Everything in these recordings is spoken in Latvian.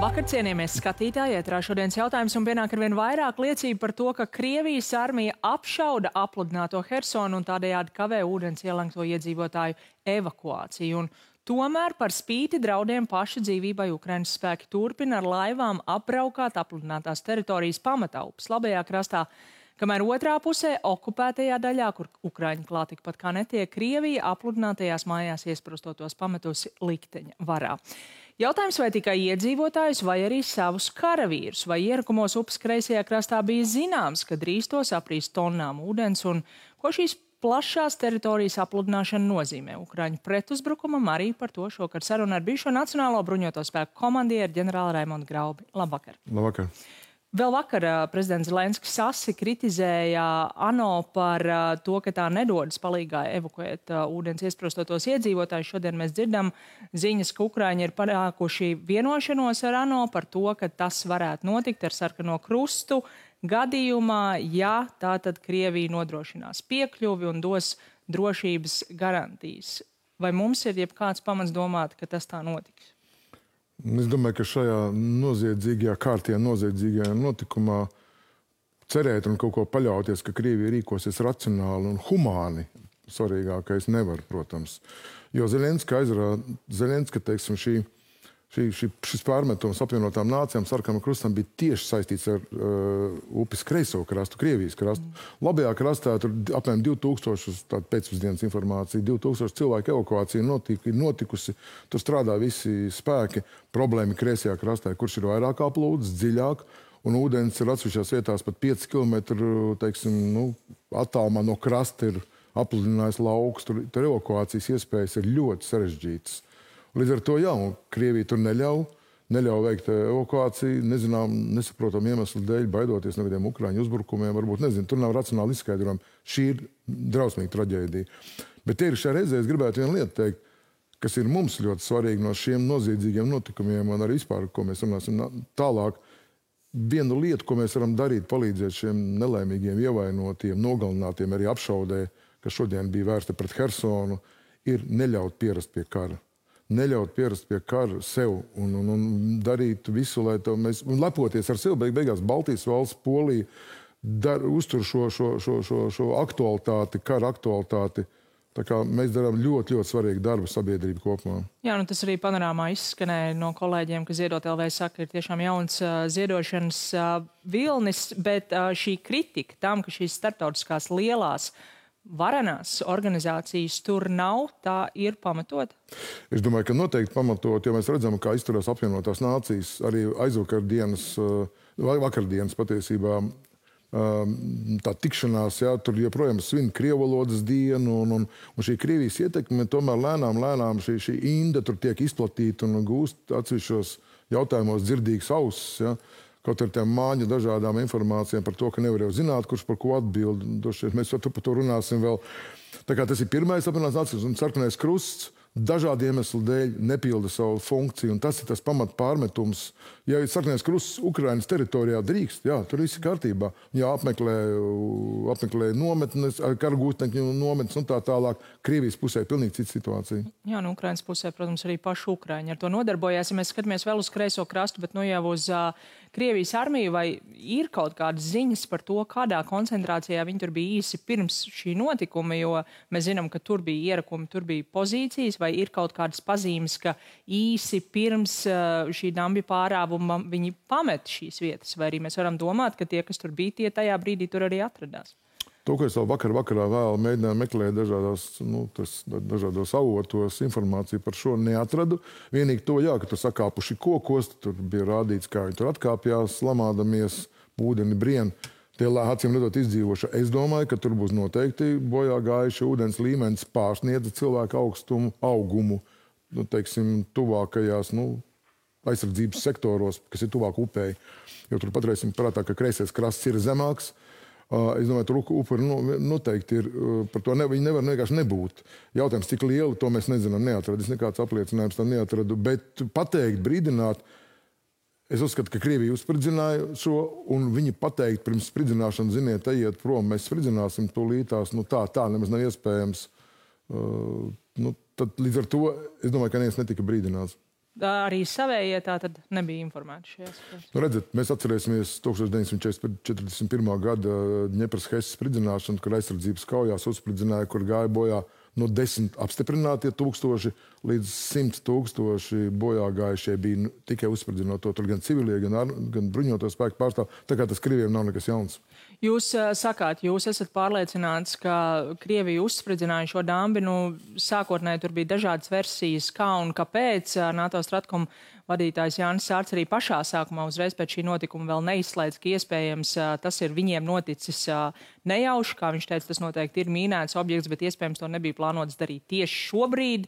Labvakar, cienījamies skatītāji, ētrā šodienas jautājums un pienāk arvien vairāk liecību par to, ka Krievijas armija apšauda apludināto Hersonu un tādējādi kavē ūdens ielenkto iedzīvotāju evakuāciju. Un tomēr par spīti draudiem paša dzīvībai Ukrainas spēki turpina ar laivām apbraukāt apludinātās teritorijas pamataupes labajā krastā, kamēr otrā pusē, okupētajā daļā, kur Ukraiņi klāt tikpat kā netiek, Krievija apludinātajās mājās iesprostotos pametusi likteņa varā. Jautājums, vai tikai iedzīvotājus vai arī savus karavīrus, vai ierakumos upes kreisajā krastā bija zināms, ka drīz tos aprīs tonnām ūdens un ko šīs plašās teritorijas apludināšana nozīmē Ukraiņu pretuzbrukumam, arī par to šokar saruna ar bijušo Nacionālo bruņoto spēku komandieru ģenerāli Raimondu Graubi. Labvakar! Labvakar! Vēl vakar prezidents Zelenskis asi kritizēja ANO par to, ka tā nedodas palīgā evakuēt ūdens iesprostotos iedzīvotājus. Šodien mēs dzirdam ziņas, ka Ukraiņi ir panākuši vienošanos ar ANO par to, ka tas varētu notikt ar sarkano krustu gadījumā, ja tātad Krievija nodrošinās piekļuvi un dos drošības garantijas. Vai mums ir jebkāds pamats domāt, ka tas tā notiks? Es domāju, ka šajā noziedzīgajā kārtījā, noziedzīgajā notikumā cerēt un kaut ko paļauties, ka Krievija rīkosies racionāli un humāni, svarīgākais nevar, protams. Jo Zelenska, teiksim, šis pārmetums apvienotām nācijām sarkanam krustam bija tieši saistīts ar upes kreiso krastu, Krievijas krastu. Labajā krastā tur apmēram 2000, tāda pēcpusdienas informācija, 2000 cilvēku evakuācija notikusi. Tur strādā visi spēki. Problēma kreisajā krastā, kurš ir vairāk aplūdes, dziļāk, un ūdens ir atsevišķās vietās pat 5 km, teiksim, attālumā no krasta ir apludinājis lauks. Tur evakuācijas iespējas ir ļoti sarežģītas. Līdz ar to, jā, Krievija tur neļauj veikt evakuāciju, nesaprotam iemeslu dēļ, baidoties no kādiem Ukraiņu uzbrukumiem, varbūt, tur nav racionāli izskaidrojumi. Šī ir drausmīga traģēdija. Bet tie ir šajā reizē, es gribētu vienu lietu teikt, kas ir mums ļoti svarīgi no šiem noziedzīgiem notikumiem un arī vispār, ko mēs runāsim tālāk. Vienu lietu, ko mēs varam darīt, palīdzēt šiem nelaimīgiem ievainotiem, nogalinātiem, arī apšaudē, kas šodien bija vērsta pret Hersonu, ir neļaut pierast pie kara. Neļaut pierast pie kara sev un darīt visu, lai mēs lepoties ar sevi. Beigās Baltijas valsts, Polija uztur šo aktualitāti, kara aktualitāti. Tā kā mēs darām ļoti, ļoti svarīgu darbu sabiedrību kopumā. Jā, tas arī panorāmā izskanēja no kolēģiem, ka Ziedot LV saka, ir tiešām jauns ziedošanas vilnis, bet šī kritika tam, ka šīs starptautiskās lielās varenās organizācijas tur nav, tā ir pamatot? Es domāju, ka noteikti pamatot, jo mēs redzam, kā izturās apvienotās nācijas, arī vakardienas patiesībā tā tikšanās, jā, tur joprojām svin krievvalodas dienu, un šī Krievijas ietekme tomēr lēnām šī inde tur tiek izplatīta un gūst atsevišķos jautājumos dzirdīgas ausis, jā. Kaut ar tiem māņu dažādām informācijām par to, ka nevar jau zināt, kurš par ko atbild. Mēs par to runāsim vēl. Tā kā tas ir pirmais apvienotās nācijas un sarkanais krusts dažādu iemeslu dēļ nepilda savu funkciju. Un tas ir tas pamat pārmetums. Ja sarkanais krusts Ukrainas teritorijā drīkst, jā, tur viss ir kārtībā. Jā, apmeklē nometnes, karagūtneņu nometnes un tā tālāk. Krievijas pusē pilnīgi cita situācija. Jā, no Ukrainas pusē, protams, arī paši Ukraiņi ar to nodarbojās. Ja mēs skatāmies vēl uz kreiso krastu, bet jau uz Krievijas armiju, vai ir kaut kādas ziņas par to, kādā koncentrācijā viņi tur bija īsi pirms šī notikuma, jo mēs zinām, ka tur bija ierakumi, tur bija pozīcijas, vai ir kaut kādas pazīmes, ka īsi pirms šī dambja pārāvuma viņi pamet šīs vietas, vai arī mēs varam domāt, ka tie, kas tur bija, tie tajā brīdī tur arī atradās? To, ko es vēl vakarā vēl mēģināju meklēt dažādos avotos informāciju par šo neatradu. Vienīgi to, jā, ka tur sakāpuši kokos, tur bija rādīts, kā viņi tur atkāpjās, lamādamies, ūdeni brien. Tie acīm redzot izdzīvoši. Es domāju, ka tur būs noteikti bojā gājuši ūdens līmenis pārsniedza cilvēku augumu, teiksim, tuvākajās, aizsardzības sektoros, kas ir tuvāk upei. Jo tur patreisim prātā, ka kreisais krasts ir zemāks. Es domāju, tur upuri noteikti ir, par to viņi nevar vienkārši nebūt. Jautājums, cik lielu, to mēs nezinām, neatradu. Es nekāds apliecinājums tam neatradu, bet pateikt, brīdināt, es uzskatu, ka Krievija uzspridzināja šo, un viņi pateikt pirms spridzināšanas, ziniet, ejiet prom, mēs spridzināsim tūlītās, tā nemaz nav iespējams. Tad līdz ar to, es domāju, ka neviens netika brīdināts. Arī savējie tā tad nebija informēti šajās. Nu, redzat, mēs atcerēsimies 1941. gada Ņepras Hesas spridzināšanu, kur aizsardzības kaujās uzspridzināja, kur gāja bojā no 10 apstiprinātie tūkstoši līdz 100 tūkstoši bojā gājušie bija tikai uzspridzinot to. Tur gan civilie, gan bruņoto spēku pārstāv. Tā kā tas Krievijam nav nekas jauns. Jūs sakāt, jūs esat pārliecināts, ka Krievija uzspridzināja šo dambi. Sākotnēji tur bija dažādas versijas, kā un kāpēc. NATO Stratkom vadītājs Jānis Sārts arī pašā sākumā uzreiz pēc šī notikuma vēl neizslēdz, ka iespējams tas ir viņiem noticis nejauši. Kā viņš teica, tas noteikti ir mīnēts objekts, bet iespējams to nebija plānots darīt tieši šobrīd.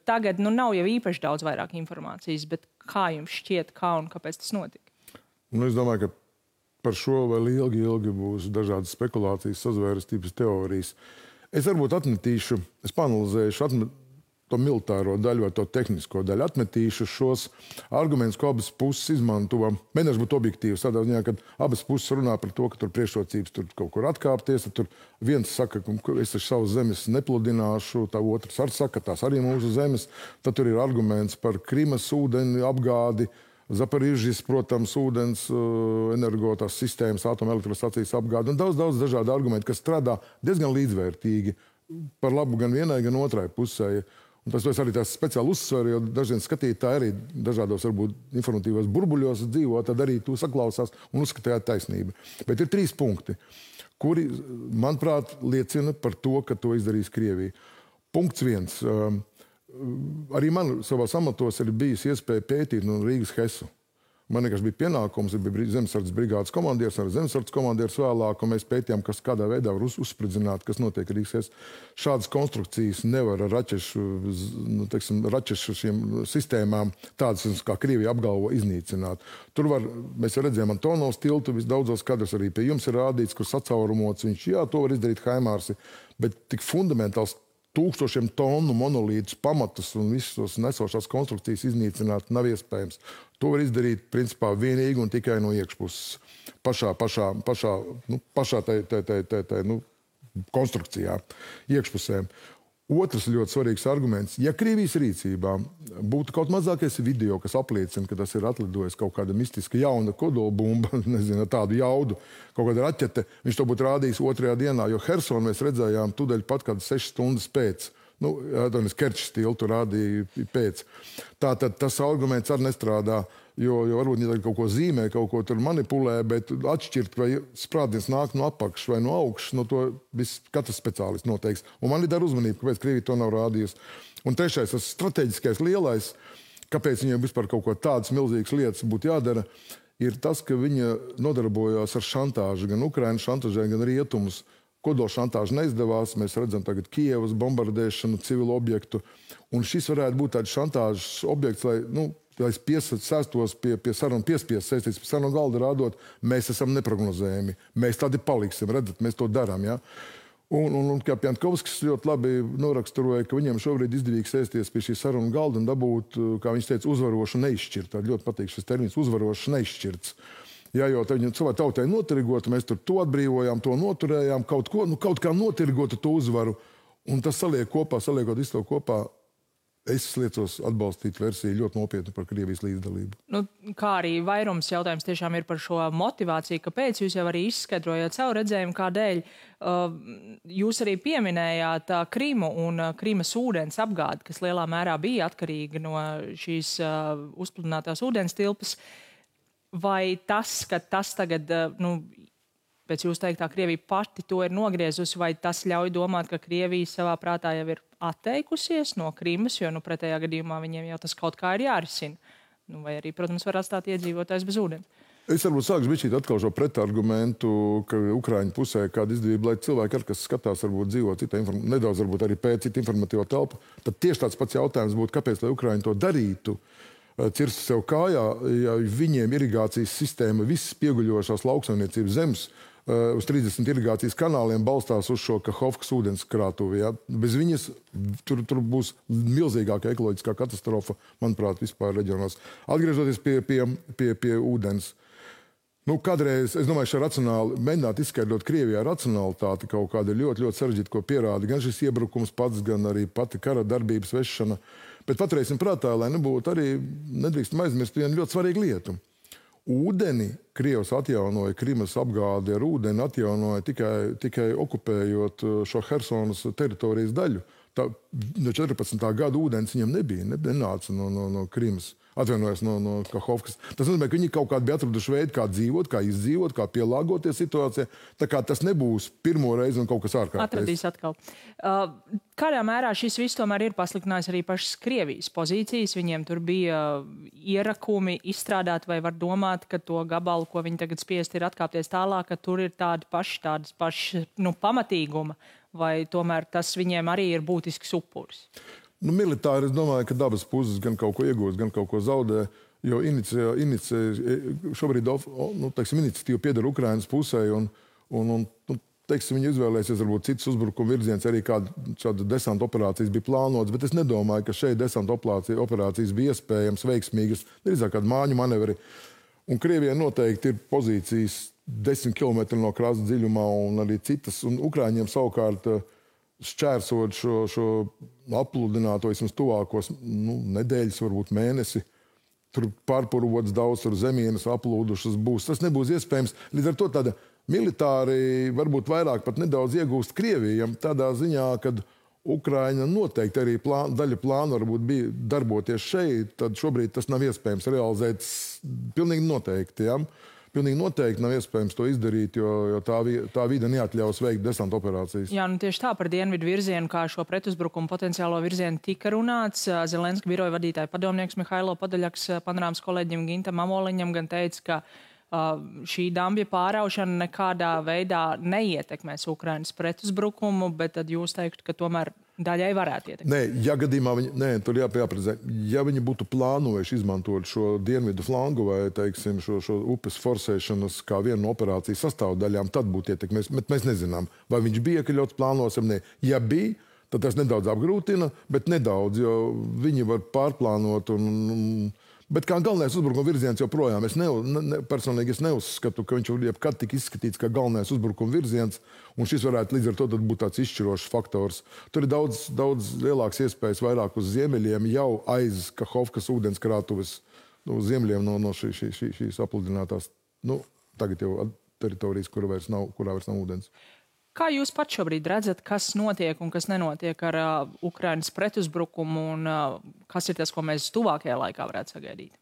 Tagad nav jau īpaši daudz vairāk informācijas, bet kā jums šķiet, kā un kāpēc tas notika? Es domāju, ka par šo vēl ilgi būs dažādas spekulācijas, sazvērestības teorijas. Es varbūt atmetīšu, es panalizēšu to militāro daļu vai to tehnisko daļu. Atmetīšu šos argumentus, ko abas puses izmanto. Mēģināšu būt objektīvs tādā ziņā, kad abas puses runā par to, ka tur priekšrocības tur kaut kur atkāpties. Tur viens saka, ka es taču savas zemes nepludināšu, tā otrs arī saka, ka tās arī mūsu zemes. Tad tur ir arguments par Krimas ūdeni apgādi, Zaporižģis, protams, ūdens energotās sistēmas, atomelektrostacijas apgādi un daudz dažādu argumentu, kas strādā diezgan līdzvērtīgi par labu gan vienai, gan otrai pusē. Un tas arī tās speciāli uzsver, jo dažiem skatītāji arī dažādos varbūt informatīvos burbuļos dzīvo, tad arī tu saklausās un uzskatījāt taisnību. Bet ir 3 punkti, kuri, manuprāt, liecina par to, ka to izdarīs Krievija. Punkts 1. Arī man savās amatos ir bijis iespēja pētīt no Rīgas Hesu. Man vienkārši bija pienākums, bija zemesardzes brigādes komandieris, arī zemesardzes komandieris vēlāk, un mēs pētījām, kas kādā veidā var uzspridzināt, kas notiek Rīgas Hesas. Šādas konstrukcijas nevar ar raķešu šiem sistēmām, tādas, kā Krievija apgalvo, iznīcināt. Tur var, mēs redzējām Antonovs tiltu, visdaudzos kadros arī pie jums ir rādīts, kur sacaurumots viņš, jā, to var izdarīt Haimārsi, bet tik fundamentāls 1000 tonu monolītus, pamatus un visus tos nesošās konstrukcijas iznīcināt nav iespējams. To var izdarīt, principā, vienīgi un tikai no iekšpuses. Pašā konstrukcijā, iekšpusē. Otrs ļoti svarīgs arguments. Ja Krievijas rīcībā būtu kaut mazākais video, kas apliecina, ka tas ir atlidojis kaut kāda mistiska jauna kodolbumba, nezinu, tādu jaudu, kaut kāda raķete, viņš to būtu rādījis 2. dienā, jo Hersonu mēs redzējām tūdaļ pat kādas 6 stundas pēc. Kerčs tiltu rādīja pēc. Tātad tas arguments arī nestrādā, jo varbūt viņi kaut ko zīmē, kaut ko tur manipulē, bet atšķirt, vai sprādziens nāk no apakšas vai no augšas, no to katrs speciālists noteiks. Un man ir dar uzmanību, kāpēc Krievija to nav rādījusi. Un trešais, tas strateģiskais lielais, kāpēc viņiem vispār kaut ko tādas milzīgas lietas būtu jādara, ir tas, ka viņa nodarbojās ar šantāžu, gan Ukrainas šantāžai, gan rietumus. Kodola šantāža neizdevās, mēs redzam tagad Kijevas bombardēšanu, civilu objektu. Un šis varētu būt tāds šantāžas objekts, lai sēstos pie sarunu piespies, sēsties pie sarunu galda rādot, mēs esam neprognozējami. Mēs tādi paliksim, redzat, mēs to darām. Ja? Un kā Pjantkovskis ļoti labi noraksturoja, ka viņiem šobrīd izdevīgi sēsties pie šī sarunu galda un dabūt, kā viņš teica, uzvarošu neizšķirt. Tā ļoti patīk šis termins, uzvarošu neizšķirts. Jā, jo viņu savā tautai notirgota, mēs tur to atbrīvojām, to noturējām, kaut kā notirgota to uzvaru. Un tas saliekot visu to kopā, es liecos atbalstīt versiju ļoti nopietni par Krievijas līdzdalību. Kā arī vairums jautājums tiešām ir par šo motivāciju, kāpēc jūs jau arī izskaidrojāt savu redzējumu, kādēļ. Jūs arī pieminējāt Krimu un Krimas ūdens apgādi, kas lielā mērā bija atkarīga no šīs uzpludinātās ūdens tilpas. Vai tas, ka tas tagad, pēc jūs teiktā, Krievija pati to ir nogriezusi, vai tas ļauj domāt, ka Krievija savā prātā jau ir atteikusies no Krimas, jo pretējā gadījumā viņiem jau tas kaut kā ir jārisina? Vai arī, protams, var atstāt iedzīvotājs bez ūdens? Es varbūt sākšu bišķīt atkal šo pretargumentu, ka Ukraiņu pusē kāda izdevība, lai cilvēki, kas skatās, varbūt dzīvo nedaudz varbūt arī pēc citu informatīvo telpu, tad tieši tāds pats jautājums būtu, kāpēc, lai Ukraiņi to darītu, cirst sev kājā, ja viņiem irigācijas sistēma, visas pieguļošās lauksaimniecības zemes uz 30 irigācijas kanāliem balstās uz šo Kahovkas ūdens krātuvi. Ja? Bez viņas tur būs milzīgāka ekoloģiskā katastrofa, manuprāt, vispār reģionos. Atgriežoties pie ūdens. Kādreiz, es domāju, šeit racionāli mēģināt izskaidrot Krievijā racionalitāti kaut kāda ļoti, ļoti sarežģīta, ko pierāda gan šis iebrukums pats, gan arī pati kara darbības vešana. Bet paturēsim prātā, lai nebūtu arī, nedrīkstam aizmirst vienu ļoti svarīgu lietu. Ūdeni Krievs atjaunoja, Krimas apgādi ar ūdeni atjaunoja tikai okupējot šo Hersonas teritorijas daļu. No 14. gada ūdens viņam nenāca no Krimas. Atvainojos no Kahovkas. Tas nozīmē, ka viņi kaut kādā bija atraduši veidu, kā dzīvot, kā izdzīvot, kā pielāgoties situācijai. Tā kā tas nebūs pirmo reizi un kaut kas ārkārtējs. Atradīs atkal. Kādā mērā šis viss tomēr ir pasliktinājis arī pašas Krievijas pozīcijas? Viņiem tur bija ierakumi izstrādāt, vai var domāt, ka to gabalu, ko viņi tagad spiest, ir atkāpties tālāk, ka tur ir tādas pašas pamatīguma, vai tomēr tas viņiem arī ir būtisks upuris? Militāri es domāju, ka dabas puses gan kaut ko iegūst, gan kaut ko zaudē, jo šobrīd iniciatīva pieder Ukrainas pusē, un viņi izvēlēsies varbūt citas uzbrukuma virziens, arī kāda desanta operācijas bija plānotas, bet es nedomāju, ka šeit desanta operācijas bija iespējams veiksmīgas, drīzāk kāda māņu manevri. Un Krievijai noteikti ir pozīcijas 10 km no krasta dziļumā un arī citas, un Ukraiņiem savukārt šķērsot šo apludināto vismaz tuvākos nedēļas, varbūt mēnesi. Tur pārpurots daudz, tur zemienes aplūdušas būs. Tas nebūs iespējams. Līdz ar to tāda militāri varbūt vairāk pat nedaudz iegūst Krievijam tādā ziņā, kad Ukraina noteikti arī daļa plāna varbūt bija darboties šeit, tad šobrīd tas nav iespējams realizēt pilnīgi noteikti, ja? Pilnīgi noteikti nav iespējams to izdarīt, jo tā vide neatļaus veikt desanta operācijas. Jā, tieši tā par dienvidu virzienu, kā šo pretuzbrukumu potenciālo virzienu tika runāts. Zelenska biroja vadītāja padomnieks Mihailo Podaļaks panorāmas kolēģim Gintam Amoliņam gan teica, ka šī dambja pāraušana nekādā veidā neietekmēs Ukrainas pretuzbrukumu, bet tad jūs teiktu, ka tomēr daļai varētu ietekmēt. Nē, ja gadījumā tur jāprecizē. Ja viņi būtu plānojuši izmantot šo dienvidu flangu vai, teiksim, šo upes forsēšanas kā vienu no operācijas sastāvdaļām, tad būtu ietekmēs. Bet mēs nezinām, vai viņš bija iekļauts plānos vai ne. Ja bija, tad tas nedaudz apgrūtina, bet nedaudz, jo viņi var pārplānot Bet kā galvenais uzbrukuma virziens joprojām, personīgi es neuzskatu, ka viņš jebkad tik izskatīts kā galvenais uzbrukuma virziens, un šis varētu līdz ar to būt tāds izšķirošs faktors. Tur ir daudz lielāks iespējas vairāk uz ziemeļiem, jau aiz Kahovkas ūdenskrātuves ziemeļiem no šīs apludinātās, tagad jau teritorijas, kurā vairs nav ūdens. Kā jūs pat šobrīd redzat, kas notiek un kas nenotiek ar Ukrainas pretuzbrukumu un kas ir tas, ko mēs tuvākajā laikā varētu sagaidīt?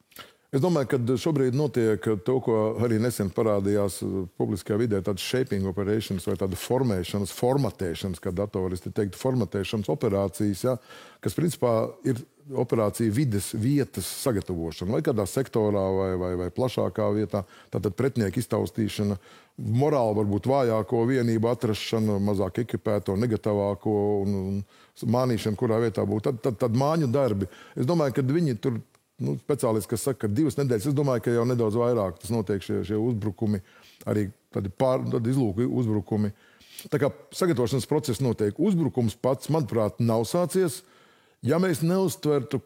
Es domāju, ka šobrīd notiek to, ko arī nesen parādījās publiskajā vidē, tādas shaping operations vai tāda formatēšanas, kā datoristi teiktu, formatēšanas operācijas, ja, kas principā ir operācija vides vietas sagatavošana, vai kādā sektorā, vai plašākā vietā, tātad pretinieku iztaustīšana, morāli varbūt vājāko vienību atrašana, mazāk ekipēto, negatīvāko un mānīšana, kurā vietā būtu. Tad māņu darbi. Es domāju, ka viņi tur, speciālisti, kas saka, ka 2 nedēļas, es domāju, ka jau nedaudz vairāk tas notiek šie uzbrukumi, arī tādi izlūku uzbrukumi. Tā kā sagatavošanas process notiek. Uzbrukums pats, manuprāt, nav sācies. Ja mēs neuzskatītu,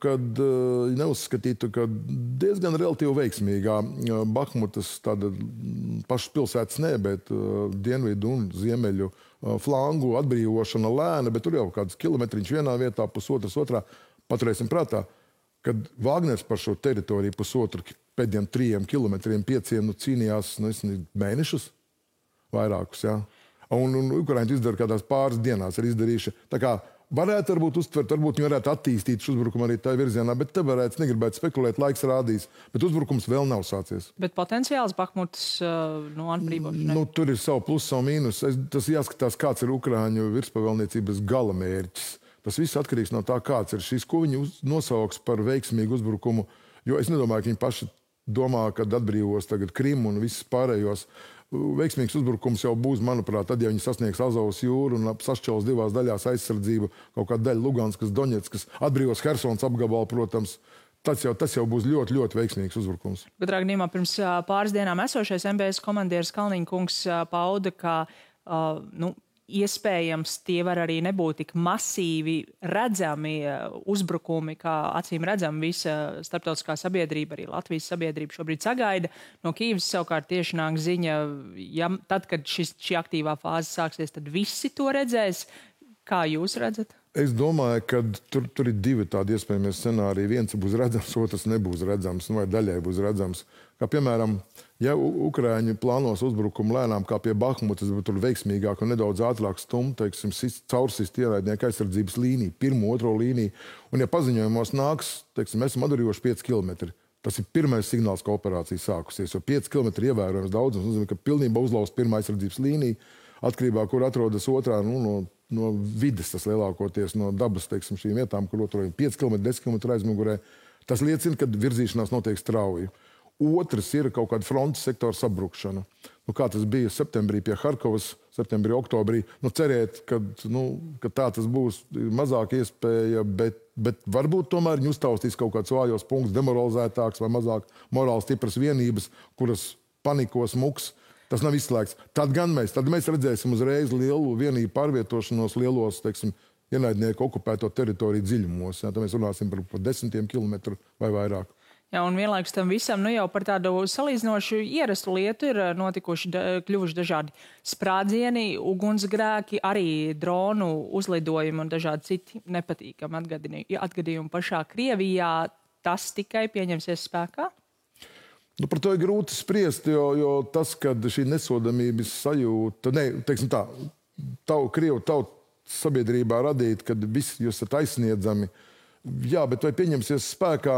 ka diezgan relatīvi veiksmīgā Bahmutas tāda pašas pilsētas bet dienvidu un ziemeļu flangu atbrīvošana lēna, bet tur jau kāds kilometriņš vienā vietā, pusotras otrā. Paturēsim prātā, kad Wagners par šo teritoriju pusotru pēdējiem 3 kilometriem, 5 cīnījās mēnešus, vairākus, jā. Un Ukraiņi izdara kādās pāris dienās ir izdarījuši. Tā kā varētu varbūt uztvert, varbūt viņi varētu attīstīt šo uzbrukumu arī tā virzienā, bet te negribētu spekulēt, laiks rādīs. Bet uzbrukums vēl nav sācies. Bet potenciāls Bahmutas atbrīvošanai? Tur ir savu plusu, savu mīnus. Tas jāskatās, kāds ir Ukraiņu virspavēlniecības galamērķis. Tas viss atkarīgs no tā, kāds ir šis, ko viņi nosauks par veiksmīgu uzbrukumu. Jo es nedomāju, ka viņi paši domā, kad atbrīvos tagad Krimu un visus pārējos. Veiksmīgs uzbrukums jau būs, manuprāt, tad, ja viņi sasniegs Azovas jūru un sašķels 2 daļās aizsardzību, kaut kāda daļa Luganskas, Doņetskas, atbrīvos Hersons apgabalu, protams, tas jau būs ļoti, ļoti veiksmīgs uzbrukums. Bet, Ragnīmā, pirms pāris dienām esošais MBS komandieris Kalniņkungs pauda, ka iespējams tie var arī nebūt tik masīvi redzami uzbrukumi, kā acīm redzam visa starptautiskā sabiedrība, arī Latvijas sabiedrība šobrīd sagaida. No Kīvas savukārt tieši nāk ziņa, tad, kad šī aktīvā fāze sāksies, tad visi to redzēs. Kā jūs redzat? Es domāju, ka tur ir divi tādi iespējami scenāriji. Viens būs redzams, otrs nebūs redzams, vai daļai būs redzams. Kā piemēram, ja Ukraiņi plānos uzbrukumu lēnām kā pie Bahmutas, bet tur veiksmīgāk un nedaudz ātrāk stumt, teiksim, caursist ienaidnieku aizsardzības līniju, pirmo, otro līniju, un ja paziņojumos nāks, teiksim, mēs esam atdarījuši 5 kilometri, tas ir pirmais signāls, ka operācija sākusies, jo 5 kilometri ievērojams daudzums, nozīmē, ka pilnībā uzlauz pirmā aizsardzības līnija, atkarībā, kur atrodas otrā, no vides, tas lielākoties no dabas, teiksim, šīm vietām, kur atrodas 5 km, 10 km aizmugurē. Tas liecina, ka virzīšanās notiek strauji. Otrs ir kaut kāda frontes sektora sabrukšana. Kā tas bija septembrī pie Harkovas, septembrī, oktobrī. Cerēt, ka tā tas būs mazāk iespēja, bet varbūt tomēr viņi uztaustīs kaut kāds vājos punkts, demoralizētāks vai mazāk morāli stipras vienības, kuras panikos muks. Tas nav izslēgts. Tad mēs redzēsim uzreiz lielu vienību pārvietošanos lielos, teiksim, ienaidnieku okupēto teritoriju dziļumos. Tad mēs runāsim par 10 kilometru vai vairāk. Jā, un vienlaikus tam visam, jau par tādu salīdzinošu ierastu lietu ir kļuvuši dažādi sprādzieni, ugunsgrēki, arī dronu uzlidojumi un dažādi citi nepatīkami atgadījumi pašā Krievijā. Tas tikai pieņemsies spēkā? Par to ir grūti spriest, jo tas, ka šī nesodamības sajūta, teiksim tā, Krievu tautas sabiedrībā radīt, kad visi jūs esat aizsniedzami, jā, bet vai pieņemsies spēkā,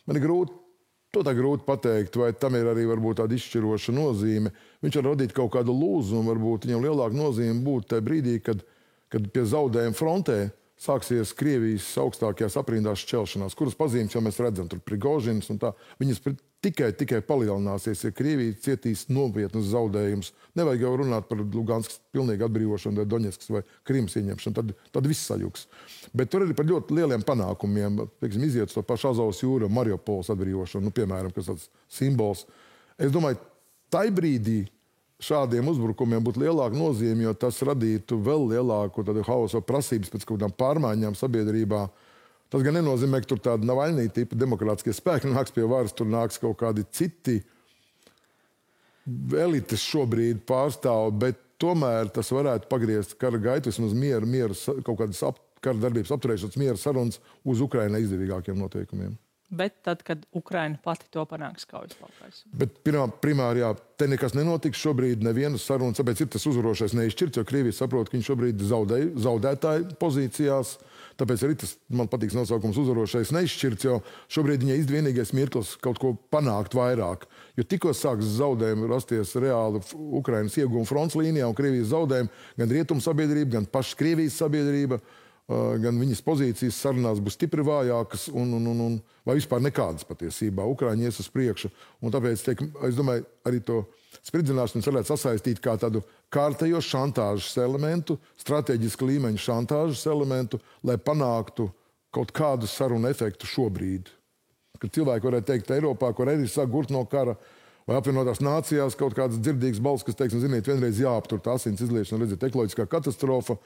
man ir grūti pateikt, vai tam ir arī varbūt tāda izšķiroša nozīme. Viņš var radīt kaut kādu lūzumu, varbūt viņam lielāka nozīme būtu tajā brīdī, kad pie zaudējuma frontē sāksies Krievijas augstākajās aprindās šķelšanās, kuras pazīmes jau mēs redzam, tur Prigožins un tā, viņas tikai palielināsies, ja Krievija cietīs nopietnus zaudējumus. Nevajag jau runāt par Luganskas pilnīgu atbrīvošanu, vai Doņetskas vai Krimas ieņemšanu, tad viss sajuks. Bet tur arī par ļoti lieliem panākumiem, pieksim, iziet to pašu Azovas jūru, Mariupoles atbrīvošanu, piemēram, kas tāds simbols. Es domāju, tai brīdī šādiem uzbrukumiem būtu lielāka nozīme, jo tas radītu vēl lielāku hausu prasības pēc kaut kādām pārmaiņām sabiedrībā. Tas gan nenozīmē, ka tur tāda Navaļnī tipa demokrātiskie spēki nāks pie varas, tur nāks kaut kādi citi elites šobrīd pārstāv, bet tomēr tas varētu pagriezt kara gaitu, vismaz mieru, kaut kādas kara darbības apturēšanas miera sarunas uz Ukrainai izdevīgākiem noteikumiem. Bet tad, kad Ukraina pati to panāks kaujas laukās. Bet primāri, jā, te nekas nenotiks šobrīd, nevienas sarunas, tāpēc ir tas uzvarošais neizšķirts, jo Krievija saprot, ka viņi šobrīd zaudētāju pozīcijās. Tāpēc arī tas, man patīk nosaukums uzvarošais neizšķirts, jo šobrīd viņai izdevīgais mirklis kaut ko panākt vairāk. Jo tikko sāks zaudējumi rasties reāli Ukrainas ieguvuma fronts līnijā un Krievijas zaudējumi, gan rietumu sabiedrība, gan pašas Krievijas sabiedrība, gan viņas pozīcijas sarunās būs stipri vājākas un vai vispār nekādas patiesībā. Ukraiņi ies uz priekšu. Un tāpēc, es domāju, arī to spridzināšanu varētu sasaistīt kā tādu kārtējo šantāžas elementu, strateģiska līmeņa šantāžas elementu, lai panāktu kaut kādu sarunu efektu šobrīd. Kad cilvēki varētu teikt Eiropā, kur arī sāk gurt no kara, vai apvienotās nācijās kaut kādas dzirdīgas balss, kas teiks, ziniet, vienreiz jāaptur tā asins izliešana, redziet, ekoloģiskā katastrofa,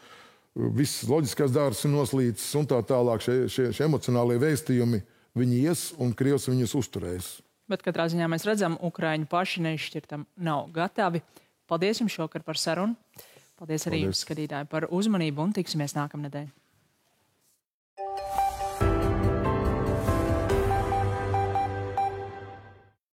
viss loģiskās dārzs ir noslīcis un tā tālāk. Šie emocionālie vēstījumi, viņi ies un Krievs viņus uzturēs. Bet katrā ziņā mēs redzam, Ukraiņi paši neizšķirtam nav gatavi. Paldies jums šokar par sarunu. Paldies arī jums, skatītāji, par uzmanību un tiksimies nākamnedēļ.